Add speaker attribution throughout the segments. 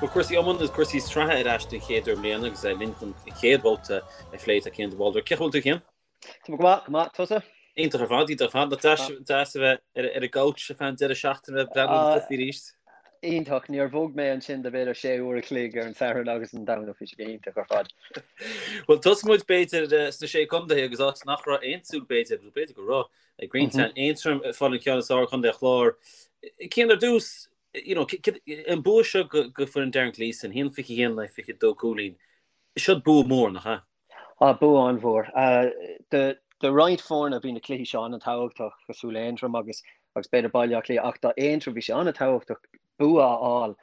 Speaker 1: Bhuel, cúrsaí iomána agus cúrsaí sraithe ar ais den chéad uair i mbliana agus linn chun an chéad bhabhta a phlé tá Cian de Bhaldraithe. Cén chaoi a bhfuil tú, Cian?
Speaker 2: Tá mé go maith, go maith. Tusa?
Speaker 1: Iontach ar fad, iontach ar fad. Nach deas, deas a bheith ar ar an gcouch ar feadh an deireadh seachtaine ag breathnú ar na cluichí arís.
Speaker 2: Iontach. Níor bhog mé ansin do b'fhéidir sé uair a chloig ar an Satharn agus an Domhnach. Bhí sé go hiontach ar fad.
Speaker 1: Bhuel, tosóidh muid b'fhéidir sna Sé Contae agus áit nach raibh aon tsúil b'fhéidir, nó b'fhéidir go raibh, ag roinnt mm -hmm. Aontroim ag fáil an ceann is fearr ar Chontae an Chláir. Cian ar dtús, you know, an bua seo go go foireann Darren Gleeson, 1-21 le 22 cúilín. Seo bua mór, nach ea?
Speaker 2: Ah, bua an-mhór. Do roinnt foirne bhí na cluichí seo an-tábhachtach, cosúil le Aontroim agus agus b'fhéidir Baile Átha Cliath, ach do Aontroim bhí sé an-tábhachtach bua a fháil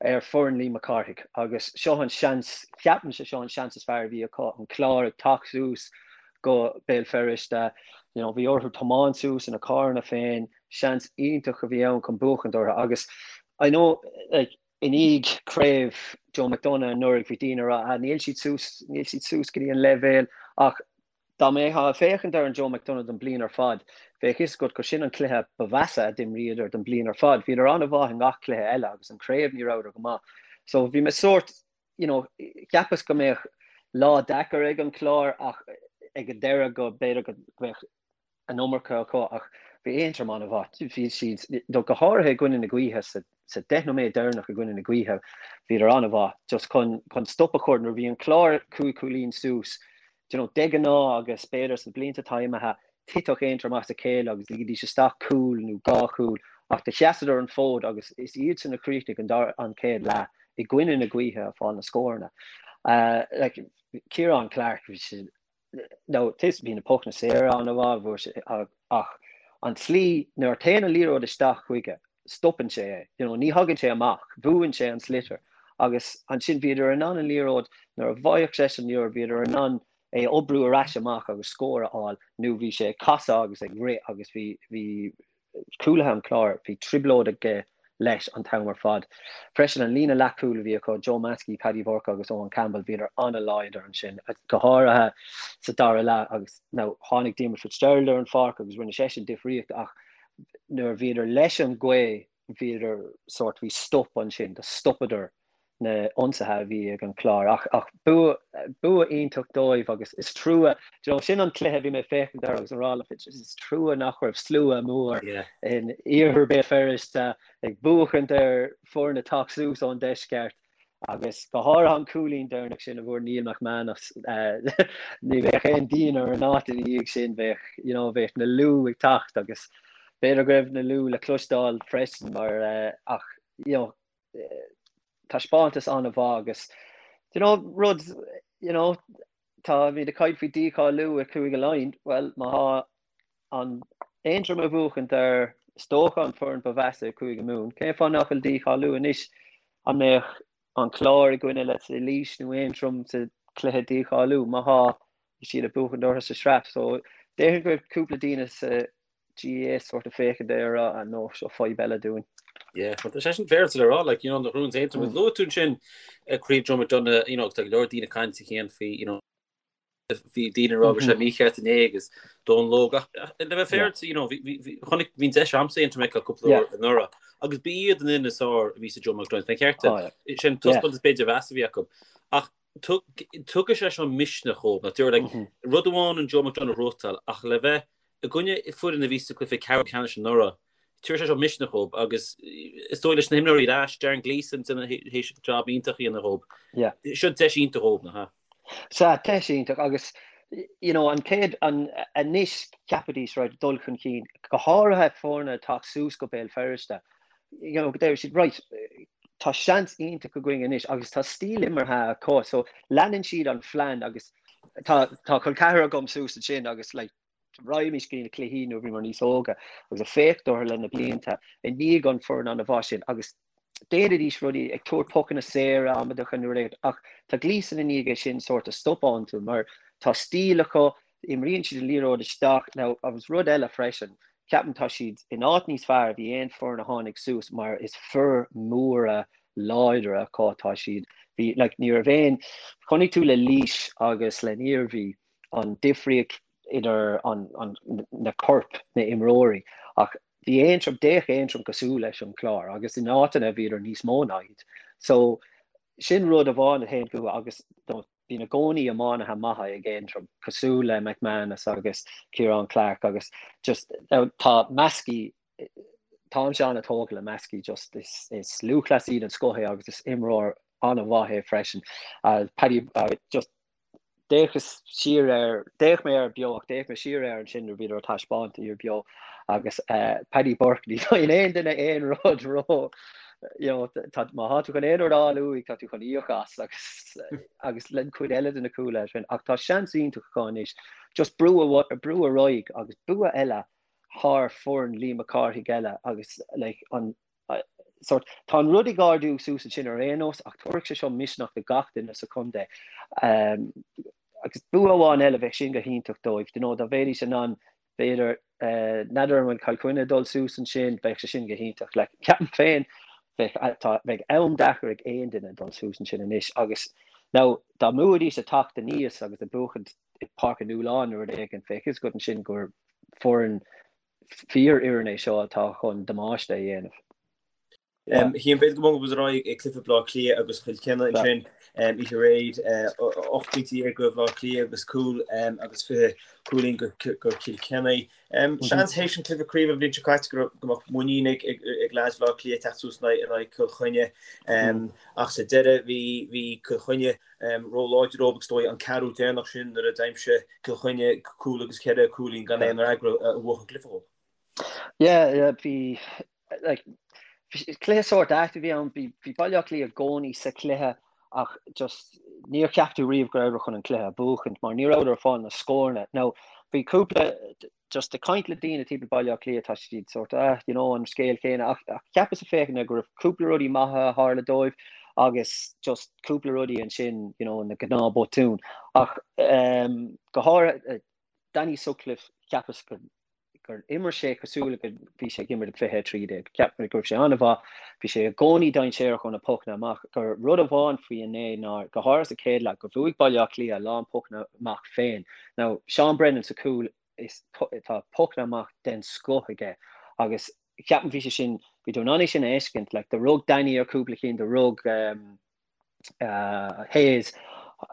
Speaker 2: ar foireann Liam Mac Cárthaigh agus seo an seans, ceapaimse seo an seans is fearr a bhí acu, an Clár ag teacht suas go Béal Feirste, you know, bhí orthu tiomáint suas ina carranna féin, seans iontach a bhí ann chun buachaint orthu agus I know, like, I ndiaidh craobh Joe McDonagh anuraidh bhí daoine ag rá ah níl siad suas, níl siad suas go dtí an leibhéal ach dá mbeifeá ag féachaint ar an Joe McDonagh don bliain ar fad bheadh fhios agat gur sin an cluiche ba mheasa a d'imríodar don bliain ar fad. Bhíodar an-mhaith i ngach cluiche eile agus an craobh ní rabhadar go maith. So bhí mé sórt, you know, cheapas go mbeadh lá deacair ag an Clár ach ag an deireadh go b'fhéidir go mbeadh an iomarca acu ach bhí Aontroim an-mhaith. Bhí siad, go háirithe i gcoinne na gaoithe, sa 10 nóiméad deireanach i gcoinne na gaoithe, bhíodar an-mhaith just chun chun stop a chur nuair a bhí an Clár cúig chúilín suas, do you know, de ghnáth agus b'fhéidir sna blianta atá imithe, thitfeadh Aontroim as a chéile agus ligfidís isteach cúl nó dhá chúl ach do sheasadar an fód agus is iadsan a chríochnaigh an dara an chéad leath i gcoinne na gaoithe ag fáil na scóranna. Uh, like, Ciarán Clarke, bhí sé Now, bhí na pocanna saora an-mhaith, bhuaigh sé, ach an tslí, nuair a théann an liathróid isteach chuige, stopann sé é, you know, ní thagann sé amach, buann sé an sliotar agus ansin bhíodar in ann an liathróid, nuair a bhfaigheadh seisean an liathróid, bhíodar in ann é a oibriú ar ais amach agus scór a fháil nó bhí sé ag casadh agus ag rith agus bhí, bhí, cúlaithe an Chláir, bhí trioblóid aige leis an t-am ar fad. Freisin, an líne leathchúil a bhí acu, Joe Maskey, Paddy Burke agus Owen Campbell, bhíodar an-láidir ansin, go háirithe sa dara leath agus now tháinig Diarmuid Fitzgerald ar an pháirc agus rinne seisean difríocht ach nuair a bhíodar leis an ghaoth, bhíodar sórt, bhí stop ansin, do stopadar na ionsaithe a bhí ag an Chlár. Ach ach bua bua iontach dóibh agus is trua, do you know, sin an cluiche a bhí mé ag féachaint air agus ag rá le Fitz, is trua nach raibh slua mór
Speaker 1: Yeah.
Speaker 2: in iarthar Béal Feirste ag buachaint ar foireann ag teacht suas ón deisceart agus go háirithe an cúilín deireanach sin a bhfuair Neil McManus ní bheadh aon díon ar an áit ina dhiaidh sin, bheadh, you know, bheadh na liú ag teacht agus b'fhéidir go raibh na liú le cloisteáil freisin mar ach, you know, taispeántas an-mhaith agus you know, rud you know, táimid ag caint faoi dícháiliú i Cúige Laighean, bhuel má thá an Aontroim ag buachaint ar is dócha an foireann ba mheasa i Cúige Mumhan, cén fáth nach bhfuil dícháiliú anois an mbeadh an Clár i gcoinne let's say Laois nó Aontroim sa chluiche dícháiliú má thá siad ag buachaint orthu sa sraith so déarfainn go raibh cúpla daoine sa GAA sort of féachaint air a rá ah no seo fadhb eile dúinn.
Speaker 1: Yeah, but tá sé sin féaráilte le rá, like, you know, na Rúns Aontroim, mm. Luaigh tú ansin eh, Craobh Joe McDonagh, you know, tá go leor daoine ag caint féin faoi, you know, bhí daoine ag rá go raibh sé mm-hmm. mícheart inné agus Dónal Óg ach le bheith féaráilte, you know, chonaic bhí an deis agamsa Aontroim a fheiceáil cúpla uair anuraidh agus ba iad an fhoireann is fearr a bhí sa Joe McDonagh, fén cheart oh, sin taispeántas b'fhéidir ba mheasa a bhí acu. Ach tugann sé seo misneach dhóibh, nach dtabharfaidh, like, rud amháin an Joe McDonagh a ghnóthachtáil ach le bheith i gcoinne foireann a bhí sa cluiche ceathrú ceannais anuraidh, tabharfaidh sé seo misneach dhóibh agus is dóigh leis na himreoirí ar ais, Darren Gleeson théis job iontach a dhéanamh dhóibh. Seo deis iontach dhóibh, nach ea?
Speaker 2: Sea, deis iontach agus you know, an chéad, an, anois cheapfaidís right, dul chun cinn, go háirithe foirne ag teacht suas go Béal Feirste, you know, go deir siad right, tá seans iontach againn anois agus tá stíl imeartha acu so leanann siad an phlean agus tá tá col ceathar agam suas ansin agus like raghaimís go dtí na cluichí nuair a bhíomar níos óga agus ag féachaint orthu le na blianta i ndiaidh an foireann an-mhaith sin agus déanaidís rudaí ag tabhairt pocanna saora amaideacha nó rud ach tá Gleeson i ndiaidh é sin sort of stopadh iontu mar tá stíl acu imríonn siad an liathróid isteach now agus rud eile freisin ceapaim tá siad in áit níos fearr a bhí aon foireann a tháinig suas mar is fir mhóra láidre acu tá siad bhí like ní raibh aon chonaic tú le Laois agus le Iarmhí an difríocht idir an, an, na coirp na imreoirí ach bhí Aontroim d'fhéach Aontroim cosúil leis an Chlár agus in áiteanna bhíodar níos mó ná iad so. Sin rud amháin a théann fúthu agus bíonn i gcónaí iománaithe maithe ag Aontroim, cosúil le McManus agus Ciarán Clarke agus just tá Maskey, táimse an-tógtha le Maskey, just is is lúthchleasaí den scoth é agus is imreoir an-mhaith é freisin. Paddy just D'fhéachas siar air, d'fhéach mé air beo ach d'fhéach mé siar air ansin nuair a bhíodar á taispeáint ar beo agus Paddy Burke, ní fhaigheann aon duine aon rud ró, you know, tá, má tá tú chun aon rud a fháil uaidh, tá tú chun íoc as agus, agus le cuid eile de na cúlaithe sin. Ach tá seans iontach acu anois just brú, brú ar aghaidh agus bua eile thar foireann Liam Mac Cárthaigh eile agus like an, sórt, tá an rud ag ardú suas ansin ar aon nós ach tabharfaidh sé seo misneach do gach duine sa chontae. Agus bua amháin eile, bheadh sin go hiontach dóibh, you know, dá mbeidís in ann, b'fhéidir, n'fheadar an bhfuil Cill Chainnigh ag dul suas ansin, bheadh sé sin go hiontach. Like, ceapaim féin, bheadh, tá, bheadh am deacair ag aon duine dul suas ansin anois agus now, dá mbuafaidís ag teacht aníos agus ag buachaint i Páirc an Fhaoileáin nó rud éigin, bheadh fhios agat ansin gur foireann fíorfhoireann é seo atá chun damáiste a dhéanamh.
Speaker 3: Cian, b'fhéidir go mbogfaidh muid ar aghaidh ag cluiche Bhaile Átha Cliath agus Chill Chainnigh ansin oíche aréir, 18 pointe go Bhaile Átha Cliath agus cúl agus 20 cúilín go Cill Chainnigh. Seans théis an cluiche craoibhe an bhliain seo caite go mbeadh muinín ag leaids Bhaile Átha Cliath teacht suas in aghaidh Chill Chainnigh ach sa deireadh bhí Cill Chainnigh ró-láidir dóibh agus is dóigh an ceathrú deireanach sin nuair a d'aimsigh Cill Chainnigh cúl agus ceithre cúilín gan aon fhreagra a bhuaigh an cluiche dhóibh.
Speaker 2: Yeah, yeah, bhí like, cluiche sórt ait a bhí ann, bhí, bhí Baile Átha Cliath i gcónaí sa chluiche ach just níor cheap tú riamh go rabhadar chun an cluiche a bhuachaint mar ní rabhadar ag fáil na scóranna. Now, bhí cúpla just ag caint le daoine timpeall Baile Átha Cliath tá siad sort ah you know an scéal céanna ach ach cheapas ag féachaint go raibh cúpla rudaí maithe a tharla dóibh agus just cúpla rudaí ansin you know na gnáth botúin ach um, go háirithe eh, Danny Sutcliffe cheapas gur gur imir sé cosúil le go bhí sé ag imirt ag 2013 cheap mé go raibh sé an-mhaith bhí sé i gcónaí dainséarach ó na pocanna amach gur rud amháin faoi inné ná go háirithe sa chéad leath gur bhuaigh Baile Átha Cliath a lán pocanna amach féin now Seán Brennan sa chúl is tá pocanna amach den scoth aige agus ceapaim bhí sé sin, bhí tú in ann é sin a fheiscint, like do rug Danny ar cúpla cinn, do rug um, uh, Hayes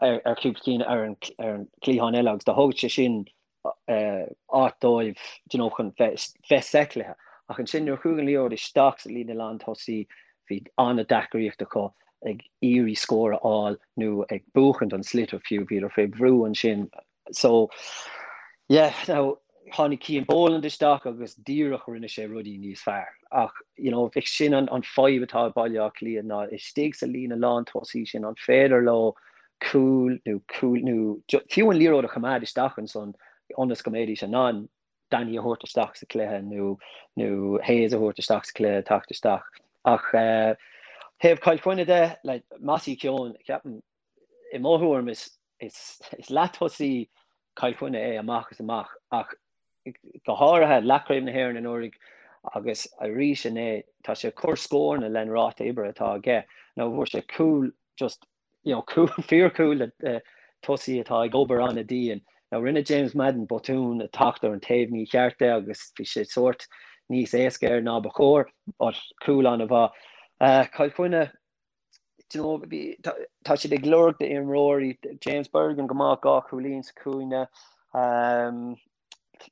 Speaker 2: ar, ar cúpla cinn ar an, ar an cliathán eile agus do thug sé sin uh, áit dóibh you know, chun bheith, bheith sa chluiche. Ach ansin nuair a chuaigh an liathróid isteach sa líne lántosaí bhí an-deacraíocht acu ag iarraidh scór a fháil nó ag buachaint an sliotar fiú, bhíodar fé bhrú ansin So, yeah, now, tháinig Cian Boland isteach agus díreach rinne sé rudaí níos fearr. Ach, you know, bheadh sin an, an fadhb atá ag Baile Átha Cliath ná istigh sa líne lántosaí sin, an féidir leo cúl nó cúl nó fiú an liathróid a choimeád isteach ansan ionas go mbeidís in ann Danny a thabhairt isteach sa chluiche nó nó Hayes a thabhairt isteach sa chluiche, teacht isteach. Ach eh, thaobh Chill Chainnigh de, like, Mossy Keoghan, ceapaim, i mo thuairim is is leath-tosaí Chill Chainnigh é amach is amach ach go háirithe leathchraobh na hÉireann anuraidh agus arís inné tá sé ag cur scóranna len ráta oibre atá aige. Now fuair sé cúl just you know cúl fíorchúl le tosaí atá ag obair an-dian. Now rinne James Madden botún ag teacht ar an taobh mícheart de agus bhí sé sórt níos éasca air ná ba chóir but cúl an-mhaith. Cill Chainnigh Do you know, bhí, tá, tá siad ag lorg d'imreoirí, James Bergin go maith, 2 chúilín sa chúinne. Um,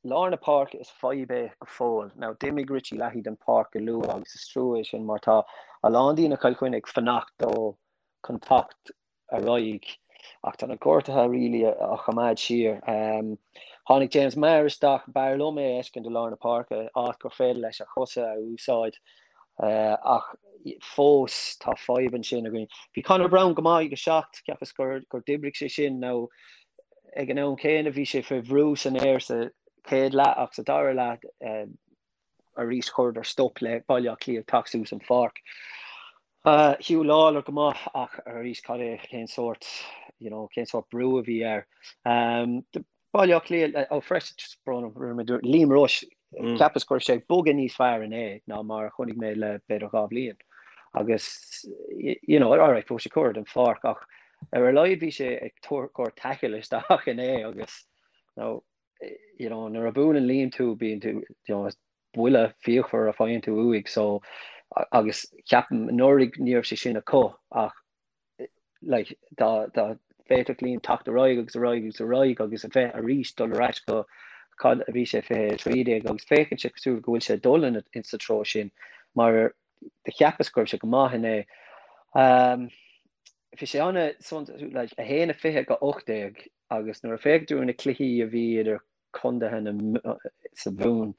Speaker 2: lár na páirce is fadhb é go fóill. Now, d'imigh Richie Leahy den pháirc go luath agus is trua é sin mar tá a lán daoine Chill Chainnigh ag fanacht dó chun teacht ar aghaidh ach tá na gortuithe really á choimeád siar. Tháinig James Maher isteach, b'fhearr liom é a fheiscint i lár na páirce, áit gur féidir leis a chosa a úsáid ach fós tá fadhb ansin againn. Bhí Conor Browne go maith ag 7, cheapas gur gur d'oibrigh sé sin now ag an am céanna bhí sé fé bhrú san aer sa chéad leath ach sa dara leath arís chuireadar stop le Baile Átha Cliath teacht suas an pháirc. Huw Lawlor go maith ach arís cad é cén sórt you know cén sórt brú a bhí air. Baile Átha Cliath ó freisin just brón orm Liam Rushe cheapas go raibh sé ag bogadh níos fearr inné ná mar a chonaic mé le b'fhéidir 2 bhliain. Agus you know alright fuair sé curtha den pháirc ach ar a laghad bhí sé ag cur tackle isteach inné agus you know, you know, nuair a buaileann Liam tú, bíonn tú, you know, buille fíochmhar a faigheann tú uaidh, so, agus ceapaim anuraidh ní raibh sé sin acu ach Like, dá dá bhféadfadh Liam teacht ar aghaidh agus ar aghaidh agus ar aghaidh agus a bheith arís dul ar ais go cad a bhí sé 2013 agus féachann sé cosúil go bhfuil sé ag dul in in sa treo sin mar do cheapas go raibh sé go maith inné. Um, bhí sé ana like, 1-20 go 18 agus nuair a féach tú ar na cluichí a bhí idir condaetha na sa Mhumhain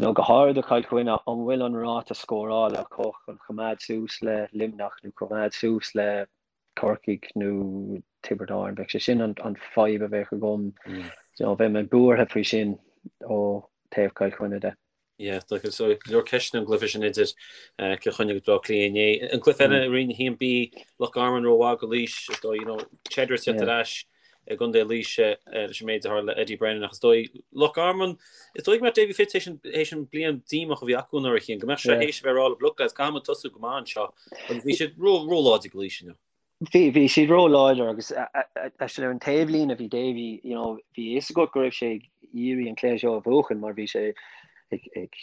Speaker 2: nó go háirid do Chill Chainnigh, an bhfuil an ráta scórála acu chun choimeád suas le Luimneach nó coimeád suas le Corcaigh nó Tiobraid Árann? Bheadh sé sin an fadhb a bheadh agam. You know, bheadh mé buartha faoi sin ó taobh Chill Chainnigh de.
Speaker 1: Yeah, tá go leor ceisteanna an gcluiche sin idir Cill Chainnigh agus Baile Átha Cliath inné. An cluiche eile i Roinn 1B, Loch Garman rómhaith do Laois, is dóigh, you know, Cheddar ag teacht ar ais i gContae Laoise leis an méid a tharla le Eddie Brennan ach is dóigh Loch Garman, is dóigh go mbeadh Davy Fitz théis an bliain díomách a bhí acu anuraidh a Chian, go mbeadh sé théis a bheith ag rá le look lads, caithfidh muid tosú go maith anseo agus bhí siad ró-láidir do Laois inniu.
Speaker 2: Bhí, bhí siad ró-láidir agus actually ar an taobhlíne bhí Davy, you know, bhí a fhios agat go raibh sé ag iarraidh an cluiche seo a bhuachan mar bhí sé ag, ag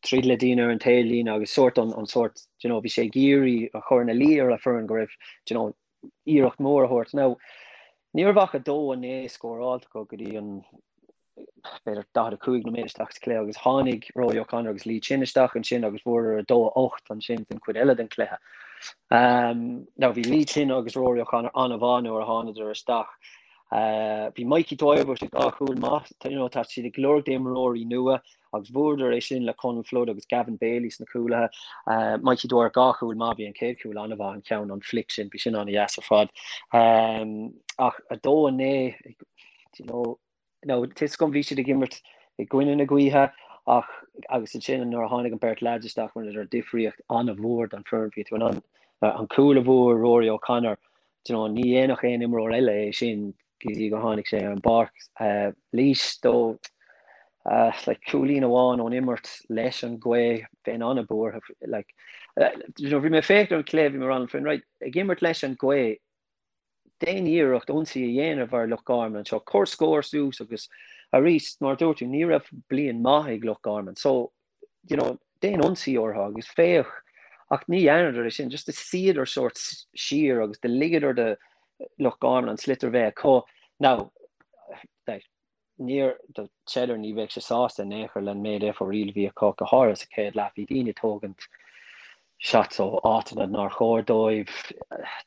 Speaker 2: troid le daoine ar an taobhlíne agus sórt an, an sórt, you know, bhí sé ag iarraidh a chur ina luí ar a foireann go raibh, you know, iarracht mór a thabhairt. Now, ní raibh ach 2-9 scóráilte acu go dtí an b'fhéidir 45 nóiméad isteach sa chluiche agus tháinig Rory O'Connor agus Lee Chin isteach ansin agus bhuadar 2-8 ansin den chuid eile den chluiche. Um, now bhí Lee Chin agus Rory O'Connor an-mhaith nuair a thánadar isteach. Uh, bhí Mikey Dwyer bhfuair sé dhá chúl maith, you know, tá siad ag lorg d'imreoirí nua agus bhuadar é sin le Conal Flood agus Gavin Bailey sna cúlaithe. Uh, Mikey Dwyer dhá chúl maith, bhí an chéad chúl an-mhaith an ceann an flick sin, bhí sin an-dheas ar fad. Um, ach 2-9, you know, Now, tá a fhios agam bhí siad ag imirt i gcoinne na gaoithe ach agus ansin nuair a tháinig an beirt leaids isteach rinneadar difríocht an-mhór don foireann. Bhí tú in ann an cúl a bhfuair Rory O'Connor, do you know, ní dhéanfadh aon imreoir eile é sin go dtí gur tháinig sé ar an bpáirc. Laois though like cúilín amháin ón imirt leis an ghaoth, bheinn an-bhuartha like you know, bhí mé ag féachaint ar an chluiche, bhí mé ag rá liom féin, right, ag imirt leis an ghaoth, déan iarracht ionsaí a dhéanamh ar Loch Garman anseo, cuir scór suas agus arís, mar a dúirt tú, ní raibh bliain maith ag Loch Garman so, you know, déan ionsaí orthu agus féach ach ní dhearnadar é sin, just do shuíodar sórt siar agus do ligeadar do Loch Garman an sliotar bheith acu. Now, like, Níor, do Cheddar, ní bheadh sé sásta in aon chor le an méid fo-riail a bhí acu, go háirithe sa chéad leath. Bhí daoine ag tógaint shots ó áiteanna nár chóir dóibh,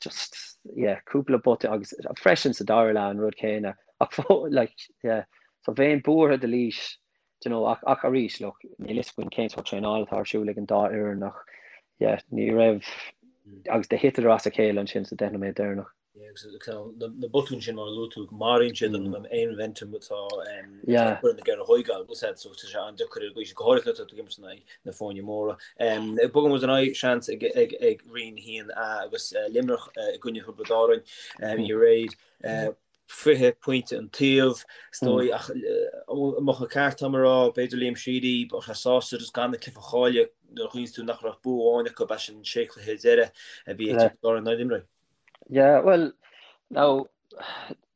Speaker 2: just, yeah, cúpla botún agus freisin sa dara leath an rud céanna. Ach like, yeah, so bheinn buartha do Laois, do you know, ach, ach arís, look, níl fhios againn cén sórt traenála atá ar siúl ag an dá fhoireann ach, yeah, ní raibh, agus do thiteadar as a chéile ansin sa deich nóiméad deireanach.
Speaker 3: Agus na botúin sin mar a luaigh tú, maraíonn siad an aon mhomentum atá foireann ag iarraidh a thógáil agus so tá sé an-deacair ar an gcaoi sin, go háirithe nuair atá tú ag imirt in aghaidh na foirne móra. Bogann muid ar aghaidh seans ag Roinn 1A agus Luimneach i gcoinne Thiobraid Árann oíche aréir. 20 pointe an taobh, is dóigh, ach an mbeadh an ceart agam a rá, b'fhéidir Liam Sheedy, bheadh sé sásta just gan an cluiche a chailleadh nuair a chuimhníonn tú nach raibh bua amháin acu as an sé chluiche deireadh a bhí ag Tiobraid Árann nár imrigh.
Speaker 2: Yeah, well, now,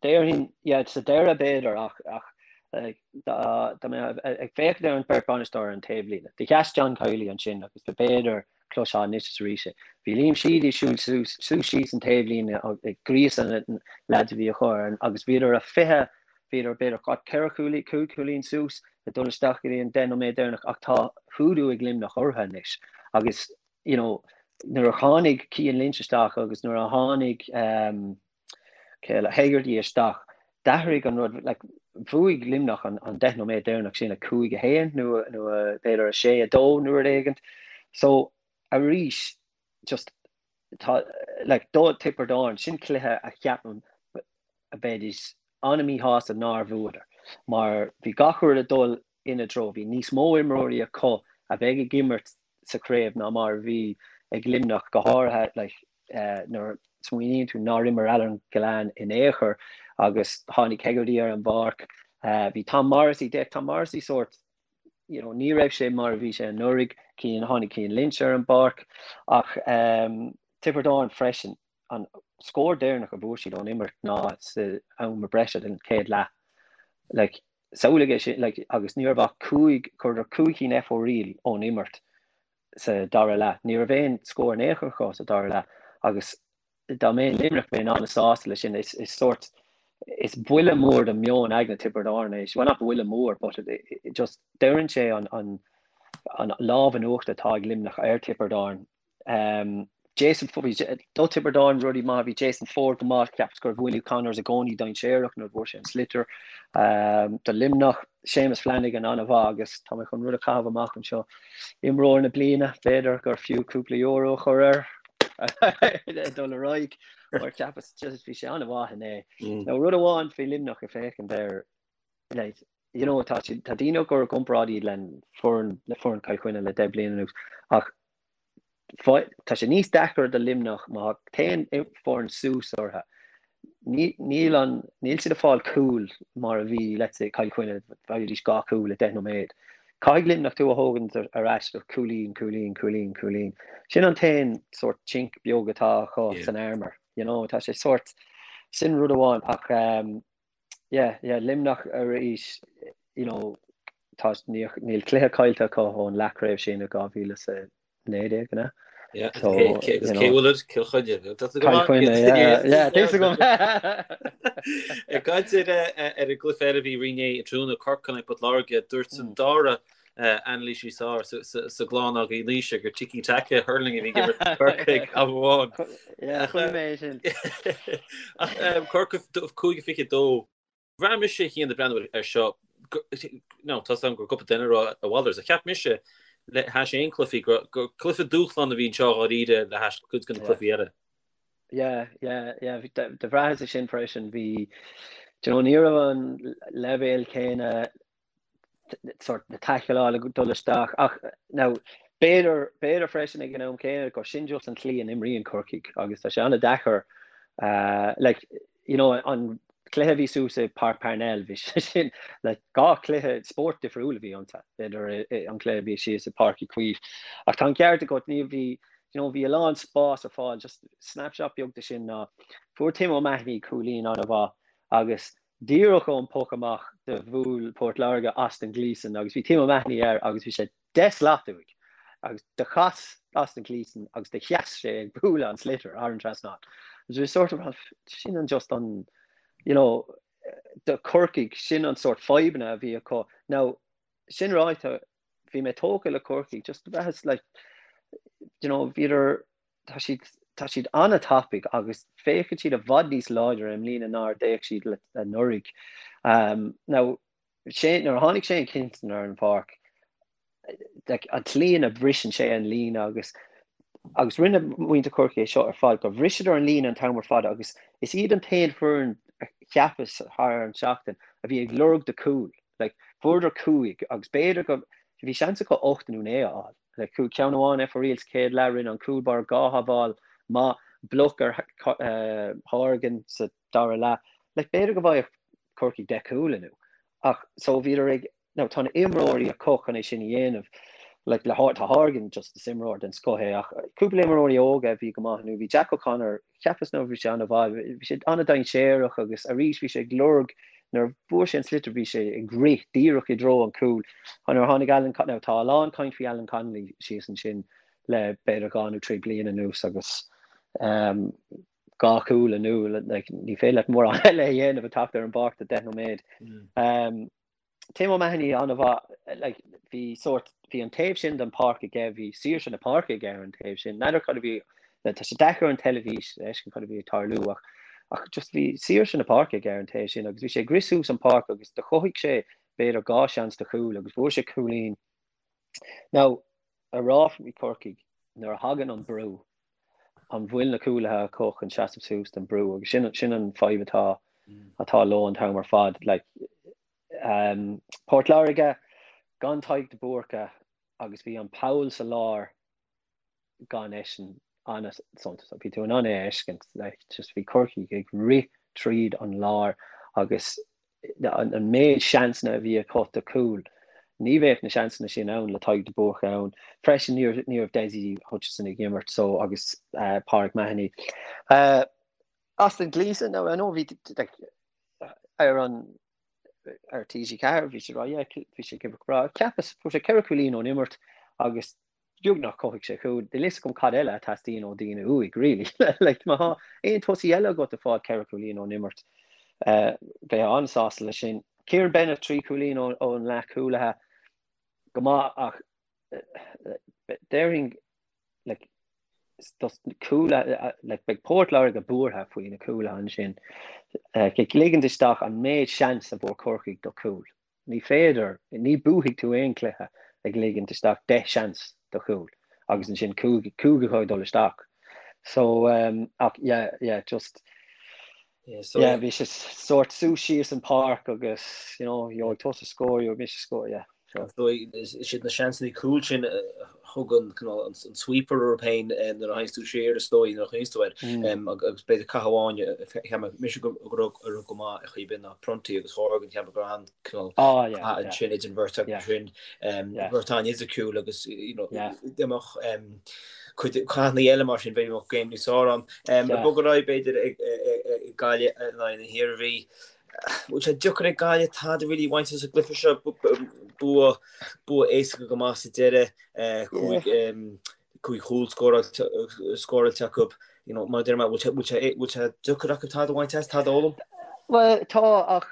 Speaker 2: déarfainn, yeah, sa deireadh b'fhéidir, ach, ach, like, dá, dá mbeifeá ag féachaint ar an bheirt bhainisteoir ar an taobhlíne, do sheas John Kiely ansin agus b'fhéidir cloisfeá anois is arís é. Bhí Liam Sheedy ag siúl suas, suas síos an taobhlíne ag gríosadh na leaids a bhí acu ar, agus bhíodar a 20, bhíodar b'fhéidir what, ceithre chúilín, cúig chúilín suas ag dul isteach go dtí an 10 nóiméad deireanach ach tá hoodoo ag Luimneach orthu anois agus you know, nuair a tháinig Cian Lynch isteach agus nuair a tháinig um, Hegarty isteach, d'athraigh an rud, like, bhuaigh Luimneach an, an 10 nóiméad deireanach sin 5-1 nó, nó b'fhéidir 6-2 nó rud éigint. So, arís, just, tá, like, do Tiobraid Árann, sin cluiche a cheapaim a bheidís an-míshásta nár bhuadar, mar bhí gach rud ag dul ina dtreo. Bhí níos mó imreoirí acu a bheidh ag imirt sa chraobh ná mar a bhí ag Luimneach, go háirithe like, nuair a smaoiníonn tú nár imir Alan Gillane in aon chor agus tháinig Hegarty ar an bpáirc. Bhí Tom Morrissey, d'fhéach Tom Morrissey sórt, you know, ní raibh sé mar a bhí sé anuraidh, Cian, tháinig Cian Lynch ar an bpáirc ach um, Tiobraid Árann freisin, an scór deireanach a bhfuair siad ón imirt ná sa am breise den chéad leath. Like, samhlaigh é sin, like, agus ní raibh ach cúig, chuireadar cúig cinn fo-riail ón imirt sa dara leath. Ní raibh aon scór in aon chor acu sa dara leath agus dá mbeinn Luimneach bheinn an-sásta leis sin. Is sórt, is buille mór do meon aigne Tiobraid Árann é, well not buille mór but it, it just deireann sé an, an, an lámh in uachtar atá ag Luimneach ar Tiobraid Árann. Um, Jason bhí do Tiobraid Árann rudaí maith, bhí Jason Forde go maith, cheapas go raibh Willie Connors i gcónaí dainséarach nuair a bhfuair sé an sliotar. Um, do Luimneach, Séamus Flanagan an-mhaith agus tá mé chun rud a chaitheamh amach anseo. Imreoir na bliana, b'fhéidir gur fiú cúpla euro a chur air dul ar aghaidh mar cheapas just bhí sé an-mhaith inné. Mm. Now rud amháin faoi Luimneach ag féachaint air like, you know, tá tá daoine ag cur i gcomparáid iad le foireann le foireann Chill Chainnigh le 10 bliain anuas ach Tá sé níos deacair do Luimneach má théann foireann suas orthu. Níl an, níl siad ag fáil cúil mar a bhí, let's say, Cill Chainnigh, bhfaighidís 2 chúl i 10 nóiméad. Caithfidh Luimneach tú a thógaint ar ais do cúilín, cúilín, cúilín, cúilín. Sin an t-aon sórt chink beag atá acu san armour, you know, tá sé sórt, sin rud amháin ach um, yeah, yeah, Luimneach arís, you know, tá, níl cluiche caillte acu ón leathchraobh sin i 2019, an ea?
Speaker 1: Yeah, so, agus cé bhfuil Cill Chainnigh.
Speaker 2: Cill Chainnigh, yeah, yeah, tá fhios agam.
Speaker 1: Ag caint ar ar an gcluiche eile a bhí inné tráthnóna Corcaigh in aghaidh Port Láirge, dúirt an dara anailísí is fearr sa gclann againn Naoise gur tiki taka hurling a bhí ag imirt Corcaigh am
Speaker 2: amháin. Yeah, chuala mé é sin.
Speaker 1: Ach Corcaigh 5-22. Bhraith mise a Chian ag breathnú ar seo, no, tá 's agam gur cúpla duine a rá a mhalairt, ach cheap mise le hais aon cluichí gur cluiche dúshlán a bhí anseo dháiríre le hais cuid de na cluichí eile.
Speaker 2: Yeah, yeah, yeah, do bhraitheas é sin freisin, bhí, do you know, ní raibh an leibhéal céanna sort na taicleála ag dul isteach ach now b'fhéidir b'fhéidir freisin ag an am céanna gur sin just an tslí a n-imríonn Corcaigh agus tá sé an-deacair uh, like, you know, an cluiche a bhí suas i Páirc Parnell bhí sé sin like, dhá chluiche spórt difriúil a bhí iontu idir an cluiche a bhí síos i Páirc Uí Chaoimh. Ach tá an ceart agat ní bhí you know, bhí a lán spás ar fáil just snapshot beag de sin ná fuair Tim O'Mahony cúilín an-mhaith agus Díreach ón poc amach do bhuail Port Láirge Austin Gleeson agus bhí Tim O'Mahony air agus bhí sé 10 slat uaidh agus do chas Austin Gleeson agus do sheas sé ag bualadh an sliotar thar an trasnán. Agus bhí sort of sin an just an you know do Corcaigh sin an sort fadhbanna a bhí acu. Now sin ráite bhí mé tógtha le Corcaigh just bhraitheas like you know bhíodar tá siad tá siad an-tapaidh agus féachann siad i bhfad níos láidre i mbliana ná ar d'fhéach siad anuraidh. Um, now, Shane, nuair a tháinig Shane Kingston ar an pháirc, like, an tslí ina bhriseann sé an líne agus agus rinne muintir Chorcaí é seo ar fad, gur bhriseadar an líne an t-am ar fad agus is iad an t-aon foireann a cheapas thar an seachtain a bhí ag lorg do cúl. Like, fuaireadar 5 agus b'fhéidir go bhí seans acu 8 nó 9 a fháil. Le cúl ceann amháin ar fóraoil sa chéad leath, rinne an cúl báire dhá shábháil maith, bloc ar Horgan sa dara leath. Like, b'fhéidir go bhfaigheadh Corcaigh 10 cúl inniu. Ach so bhíodar ag, now tá na imreoirí acu chun é sin a dhéanamh. Like, le tá Horgan just is imreoir den scoth é ach cúpla imreoirí óga a bhí go maith inniu. Bhí Jack O'Connor, cheapas nó bhí sé an-mhaith, bhí sé an-dainséarach agus arís bhí sé ag lorg Nuair a fuair sé an sliotar bhí sé ag rith díreach i dtreo an cúil. Nuair a tháinig Alan now tá a lán caint faoi Alan Connolly síos ansin le b'fhéidir dhá nó trí bliana anuas agus um, dhá chúl inniu like, ní féidir leat mórán eile a dhéanamh ag teacht ar an bpáirc do 10 nóiméad. Mm. Um, Tim O'Mahony an-mhaith, like, bhí sórt, bhí an taobh sin den pháirc aige, bhí saoirse na páirce aige ar an taobh sin. N'fheadar cad a bhí, tá sé deacair ar an teilifís a fheiscint cad a bhí ag tarlú ach, ach just bhí saoirse na páirce aige ar an taobh sin agus bhí sé ag rith suas an páirc agus do chothaigh sé b'fhéidir dhá seans do chúl agus fuair sé cúilín. Now, a rá faoi Corcaigh, nuair a thagann an brú, an bhfuil na cúlaithe acu chun seasamh suas don brú agus sin sin an fadhb atá atá leo an t-am ar fad. Like, um, Port Láirge gan Tadhg de Búrca agus bhí an poll sa lár gan eisean an-suntasach. Bhí tú in ann é a fheiscint, like, just bhí Corcaigh ag rith tríd an lár agus an méid seansanna a bhí acu do chúil, ní bheadh na seansanna sin ann le Tadhg de Búrca ann. Freisin ní raibh ní raibh Dessie Hutchinson ag imirt so agus Pauric Mahony. Austin Gleeson, now I know bhí like, ar an ar TG4 bhí sé rá yeah bhí sé ag imirt go breá. Cheapas fuair sé ceithre chúilín ón imirt agus. Beagnach chothaigh sé cúl. Níl fhios agam cad eile a teastaíonn ó daoine uaidh, really. Like, má tá aon tosaí eile agat ag fáil 4 chúilín ón imirt, bheifeá an-sásta leis sin. Kieran Bennett, 3 chúilín ón leathchúlaithe, go maith ach déarfainn, like, dos na cúlaithe, like, beidh Port Láirge buartha faoi na cúlaithe ansin. Ag ligint isteach an méid seans a fuair Corcaigh do chúl. Ní féidir, ní buafaidh tú aon chluiche ag ligint isteach 10 seans do chúl agus ansin 5 acu ag dul isteach. So, ach yeah, yeah, just, yeah, bhí sé sórt suas síos an páirc agus, you know, gheobhaidh tusa scór, gheobhaidh mise scór, yeah.
Speaker 3: So, is iad na seansanna cúil sin a thugann an sweeper orthu féin nuair a théanns tú siar is dóigh nuair a chuimhníonns tú air. Agus b'fhéidir cath amháin a cheap mise go raibh go maith ar chaoi ar bith ná Prunty agus Horgan cheap mé go raibh an-cineál cath ansin idir an bheirt acu sin. Beirt an-fhisiciúil agus dá mbeadh cuid cathanna eile mar sin bheadh game níos fearr ann. Ag bogadh ar aghaidh b'fhéidir ag Gaillimh in aghaidh na hIarmhí. Bhfuil sé deacair ag Gaillimh tada really a bhaint as an gcluiche seo, bua bua éasca go maith sa deireadh, 5 chúl scóráilte acu. You know, mar a deir mé, bhfuil sé bhfuil sé deacair acu tada a bhaint as, tada a fhoghlaim?
Speaker 2: Bhuel, tá ach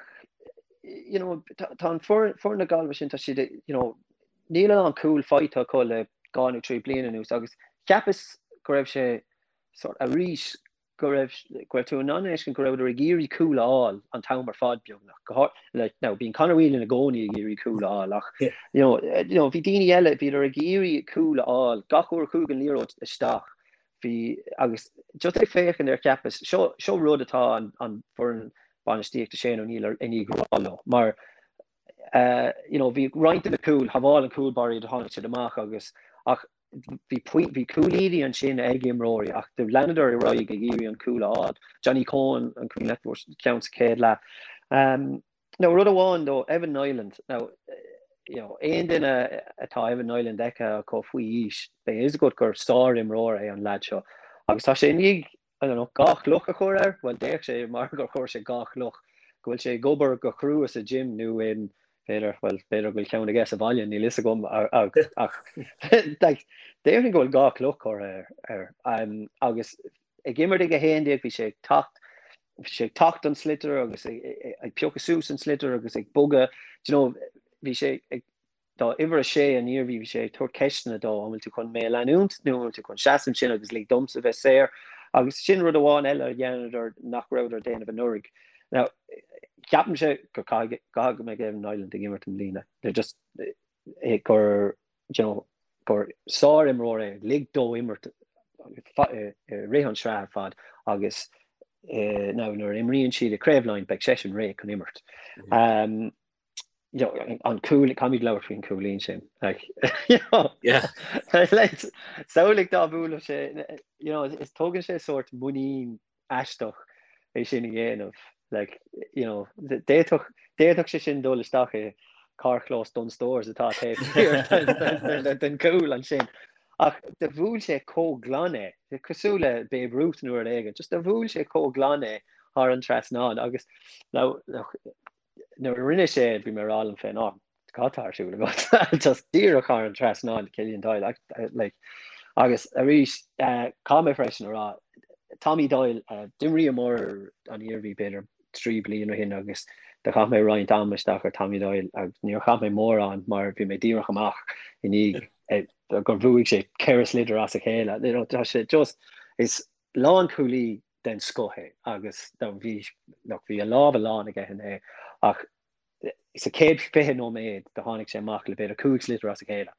Speaker 2: you know, tá an foireann na Gaillimhe sin, tá siad, you know, níl a lán cúl faighte acu le 2 nó 3 bliana anuas agus cheapas go raibh sé sort arís go raibh, go raibh tú in ann a fheiscint go rabhadar ag iarraidh cúl a fháil an t-am ar fad beagnach. Go háir, like, now bíonn Conor Whelan i gcónaí ag iarraidh cúl a fháil ach, you know, you know, bhí daoine eile, bhíodar ag iarraidh cúl a fháil gach uair a chuaigh an liathróid isteach. Bhí, agus just ag féachaint air cheapas, seo, seo rud atá an, an foireann bainistíochta Shane O'Neill i ndiaidh rá leo, mar you know, bhí roinnt de na cúil, shábháil an cúl báire iad, tháinig siad amach agus, ach Bhí bhí cúilíní ansin ag imreoirí ach do leanadar ar aghaidh ag iarraidh an cúl a fháil. Johnny Coen an cuimhin leat fuair ceann sa chéad leath. Now rud amháin though, Evan Niland, now you know, aon duine atá Evan Niland feicthe acu faoi aois, beidh a fhios agat gur sár-imreoir é an leaid seo. Agus tá sé i ndiaidh, I don't know, 2 chloch a chur air, bhuel d'fhéach sé mar gur chuir sé 2 chloch, go bhfuil sé ag obair go crua sa gym nó in, b'fhéidir, bhuel, b'fhéidir go bhfuil ceann aige sa bhaile, níl fhios agam, ach like, déarfainn go bhfuil 2 chloch curtha air. Agus ag imirt ag 11 bhí sé ag teacht, bhí sé ag teacht don sliotar agus ag piocadh suas an sliotar agus ag bogadh, do you know, bhí sé ag Do uimhir 6 an Iarmhí, bhí sé ag tabhairt ceisteanna dó, an bhfuil tú chun mé a leanúint nó an bhfuil tú chun seasamh ansin agus lig domsa bheith saor? Agus sin rud amháin eile a dheineadar nach rabhadar ag déanamh anuraidh. Now, ceapaimse go caithfidh go mbeidh Evan Niland ag imirt i mbliana. They're just gur, you know, gur sár-imreoir é, lig dó imirt i rith an sraith ar fad agus now nuair a imríonn siad i Craobh Laighean beidh seisean réidh chun imirt. Um, you know, an cúl, caithfimid labhairt faoin cúilín sin. Like, you know,
Speaker 1: Yeah.
Speaker 2: like, samhlaigh dá mbuailfeadh sé, you know, is tógann sé sórt muinín aisteach é sin a dhéanamh. Like, you know, d'fhéadfadh, d'fhéadfadh sé sin dul isteach i carrchlós Dunnes Stores atá taobh thiar den, den, den cúl ansin. Ach do bhuail sé chomh glan é, cosúil le Babe Ruth nó rud éigin, just do bhuail sé chomh glan é thar an trasnán agus now, nuair a rinne sé, bhí mé ag rá liom féin, oh, cad tá ar siúl agat? Just díreach thar an trasnán, Killian Doyle, like. Agus arís, caithfidh mé freisin a rá, Tommy Doyle, d'imríomar an Iarmhí b'fhéidir 3 bliain ó shin agus do chaith mé roinnt ama isteach ar Tommy Doyle agus níor chaith mé mórán mar bhí mé díreach amach i ndiaidh gur bhuaigh sé 4 sliotar as a chéile. You know, tá sé just, is lánchúlaí den scoth é agus bhí look bhí a lámha lán aige inné ach sa chéad 20 nóiméad do tháinig sé amach le b'fhéidir 5 sliotar as a chéile.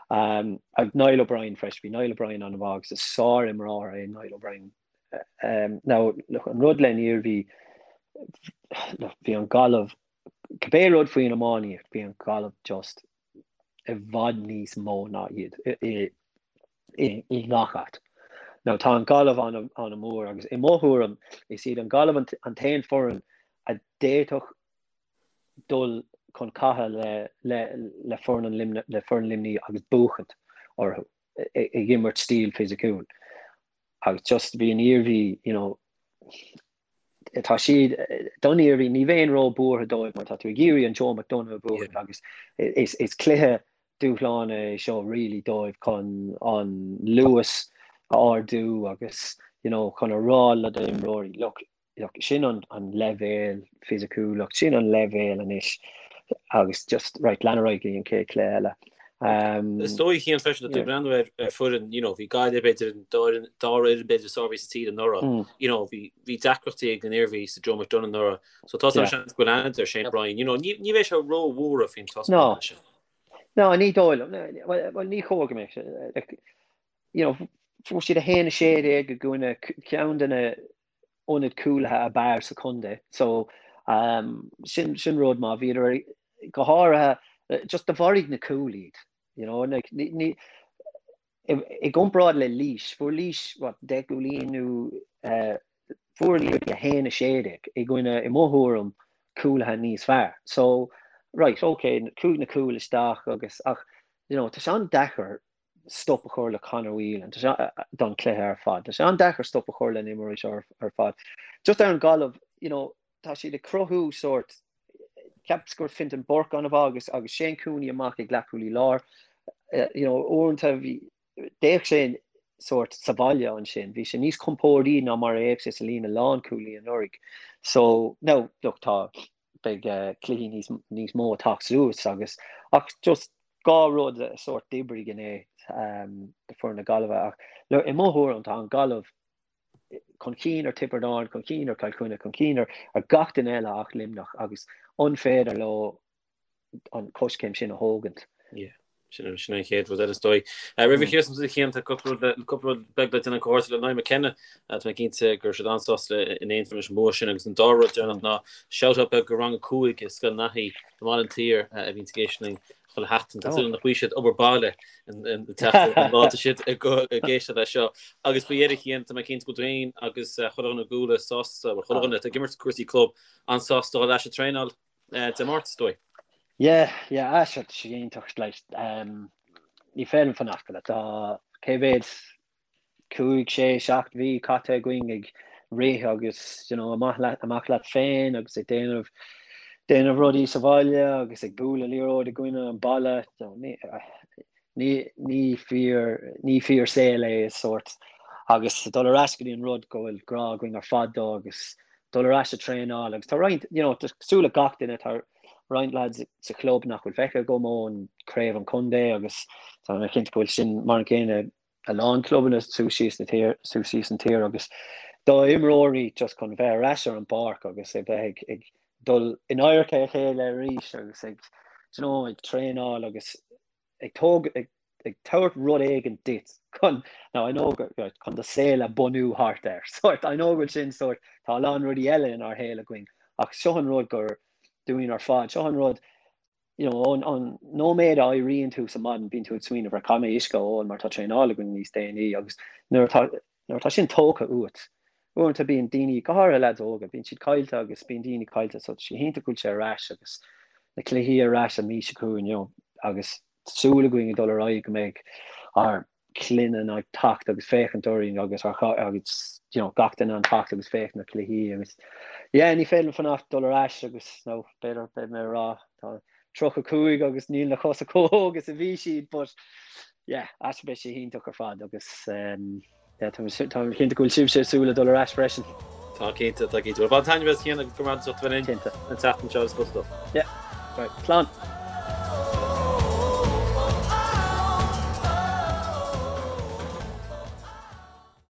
Speaker 2: Um, agus Niall O'Brien freisin, bhí Niall O'Brien an-mhaith agus is sár-imreoir é Niall O'Brien. Um, now, look, an rud len Iarmhí, look, bhí an Gaillimh, cibé rud faoin iománaíocht, bhí an Gaillimh just i bhfad níos mó ná iad i ngach áit. Now tá an Ghaillimh an-mhór agus i mo thuairim is iad an Ghaillimh an t-aon foireann a d'fhéadfadh dul chun catha le le foireann le foireann Luimnigh agus buachaint orthu ag imirt stíl fisiciúil. Agus just bhí an Iarmhí, you know, tá siad don Iarmhí, ní bheinn ró-buartha dóibh mar tá tú ag iarraidh an Joe McDonagh a bhuachaint agus is, is cluiche. dúshlán é seo really dóibh chun an luas a ardú agus you know chun a rá le d'imreoirí look look sin an an leibhéal fisiciúlacht sin an leibhéal anois agus just right lean ar aghaidh go dtí an chéad chluiche eile.
Speaker 1: Um, Is dóigh Cian freisin tú breathnú ar ar foireann you know bhí Gaillimh b'fhéidir an dara fhoireann b'fhéidir is fearr a bhí sa tír anuraidh mm. you know bhí bhí deacrachtaí ag an Iarmhí sa Joe McDonagh anuraidh so tá yeah. seans go bhfuil an Shane O'Brien you know ní ní bheidh sé róbhuartha faoin
Speaker 2: taispeántas sin. No, ní dóigh liom. Bhuel, ní chóir go mbeadh sé. You know, fuair siad 1-16 i gcoinne ceann de na ionaid cúlaithe ab fhearr sa chontae. So, um, sin, sin rud maith. Bhíodar go háirithe, just do mharaigh na cúil iad. You know, like, ní, ní, i, i gcomparáid le Laois, fuair Laois, what, 10 gcúilín nó uh, fuair an Iarmhí 1-16 i gcoinne, i mo thuairim, cúlaithe níos fearr. So, right, okay, chuaigh na cúil isteach agus, ach, you know, tá sé an-deacair stop a chur le Conor Whelan tá sé don chluiche ar fad. Tá sé an-deacair stop a chur le na himreoirí seo ar fad. Just ar an Ghaillimh, you know, tá siad ag cruthú sórt, cheapas go raibh Fintan Burke an-mhaith agus agus Shane Cooney amach ag leathchúlaí láir. You know, uaireanta bhí, d'fhéach sé sórt sa bhaile ansin, bhí sé níos compórdaí ná mar a d'fhéach sé sa líne lánchúlaí anuraidh. So, now, look, tá, beidh cluichí níos, níos mó ag teacht suas agus, ach just dhá rud a sórt d'oibrigh inné do foireann na Gaillimhe ach, look, i mo thuairim tá an Ghaillimh chun cinn ar Tiobraid Árann, chun cinn ar Chill Chainnigh, chun cinn ar gach duine eile ach Luimneach agus an féidir leo an coiscéim sin a thógaint?
Speaker 1: Yeah. Sin an chéad rud eile is dóigh. Roimh a chríochnú a Chian tá cúpla rud beag le déanamh comhghairdeas le Niall McKenna. Tá mé cinnte go raibh siad an-sásta in Aontroim leis an bua sin agus an dara rud deireanach ná shout-out beag go rang 5 i Scoil Naithí i mBaile an tSaoir a bhíonn ag éisteacht linn chuile sheachtain. Tá súil nach bhfaighidh siad obair baile an tseachtain an lá atá siad ag éisteacht leis seo. Agus faoi dheireadh a Chian, tá mé cinnte go bhfuil tú féin agus chuile dhuine i gCuala sásta, bhuel chuile dhuine atá ag imirt cúrsaí club an-sásta dul ar ais ag traenáil Dé Máirt is dóigh.
Speaker 2: Yeah, yeah, ah seo, tá sé iontach, like, ní féidir liom fanacht, like, tá cé mhéad 5, 6, 7 mhí caite againn ag rith agus you know, amach leat, amach leat féin agus ag déanamh déanamh rudaí sa bhaile agus ag bualadh liathróid i gcoinne an balla. Ní, ní, ní fíor, ní fíor saol é is sórt agus dul ar ais go dtí an rud go bhfuil grá againn ar fad dó agus dul ar ais ag traenáil agus tá roinnt, you know, cosúil le gach duine tá roinnt lads sa chlub nach bhfuil feicthe agam ón craobh an chontae agus tá mé cinnte go bhfuil sin mar an gcéanna a lán clubanna suas síos na tír, suas síos an tír agus do imreoirí just chun bheith ar ais ar an bpáirc agus ag bheith ag, ag dul in adharca a chéile arís agus ag, do you know, ag traenáil agus ag tóg, ag, ag tabhairt rud éigin duit chun, now I know go, right, chun do saol a bunú thart air, sort, I know go bhfuil sin sort, tá a lán rudaí eile inár shaol againn ach seo an rud gur dúinn ar fad, seo an rud you know, ón, ón nóiméad a éiríonn tú sa maidin, bíonn tú ag smaoineamh ar caithfidh mé uisce a ól mar tá traenáil againn níos déanaí agus nuair atá, nuair atá sin tógtha uait, uaireanta bíonn daoine, go háirithe lads óga, bíonn siad caillte agus bíonn daoine caillte so tá sé iontach go bhfuil sé ar ais agus na cluichí ar ais an mhí seo chugainn, you know, agus súil againn ag dul ar aghaidh go mbeidh ár clainne ag teacht agus féachaint orainn agus ár agus you know gach duine an teacht agus féachaint na cluichí agus yeah ní féidir liom fanacht dul ar ais agus nó b'fhéidir beidh mé ag rá tá 35 agus níl na cosa chomh hóg is a bhí siad but yeah as beidh sé iontach ar fad agus um, yeah, tá tá cinnte go bhfuil sibhse ag súil le dul ar ais freisin.
Speaker 1: Tá cinnte, tá cinnte. Well, bain taitneamh as Cian agus go raibh maith agat as ucht a bheith linn an tseachtain seo agus go dtí.
Speaker 2: Yeah, right, slán.